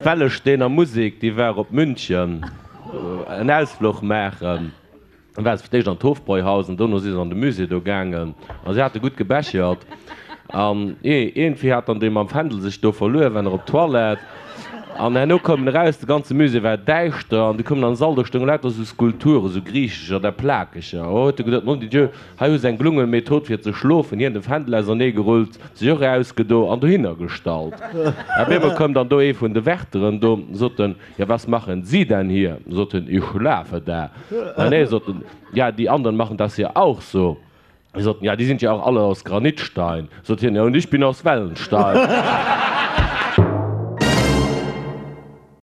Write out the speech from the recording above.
D'Wellesteener Musek, déi war op München en Ausfluch maachen. Dann ware se fir d'éischt an d'Hofbräuhaus an dono si se an de Musée do gaangen a si hate gutt gebechert. An iergendwéi hat dann dee mam Fändel sech do verluer, war nach op d'Toilette an herno koum en eraus, de ganze Musée war däischter an du koum en an de Sall, do stounge lauter esou Skulpturen, esou griichescher, da plakeger. Oh, huet e geduet, mon Dieu, hei hu se eng gelunge Method fir ze schlofen. Hien de Fändel auserneegerullt, sech och erausgedo an dohinner gestallt. Op eemol koum dann do ee vun de Wärteren do, sot en, Ja, was machen Sie denn hier? Sot en, Ich schlafe da. Ah nee, sot en, ja, die anderen machen das hier auch so. Sot en, Ja, die sind ja auch alle aus Granitstein. Sot hien, Ja, und ich bin aus Wellenstein.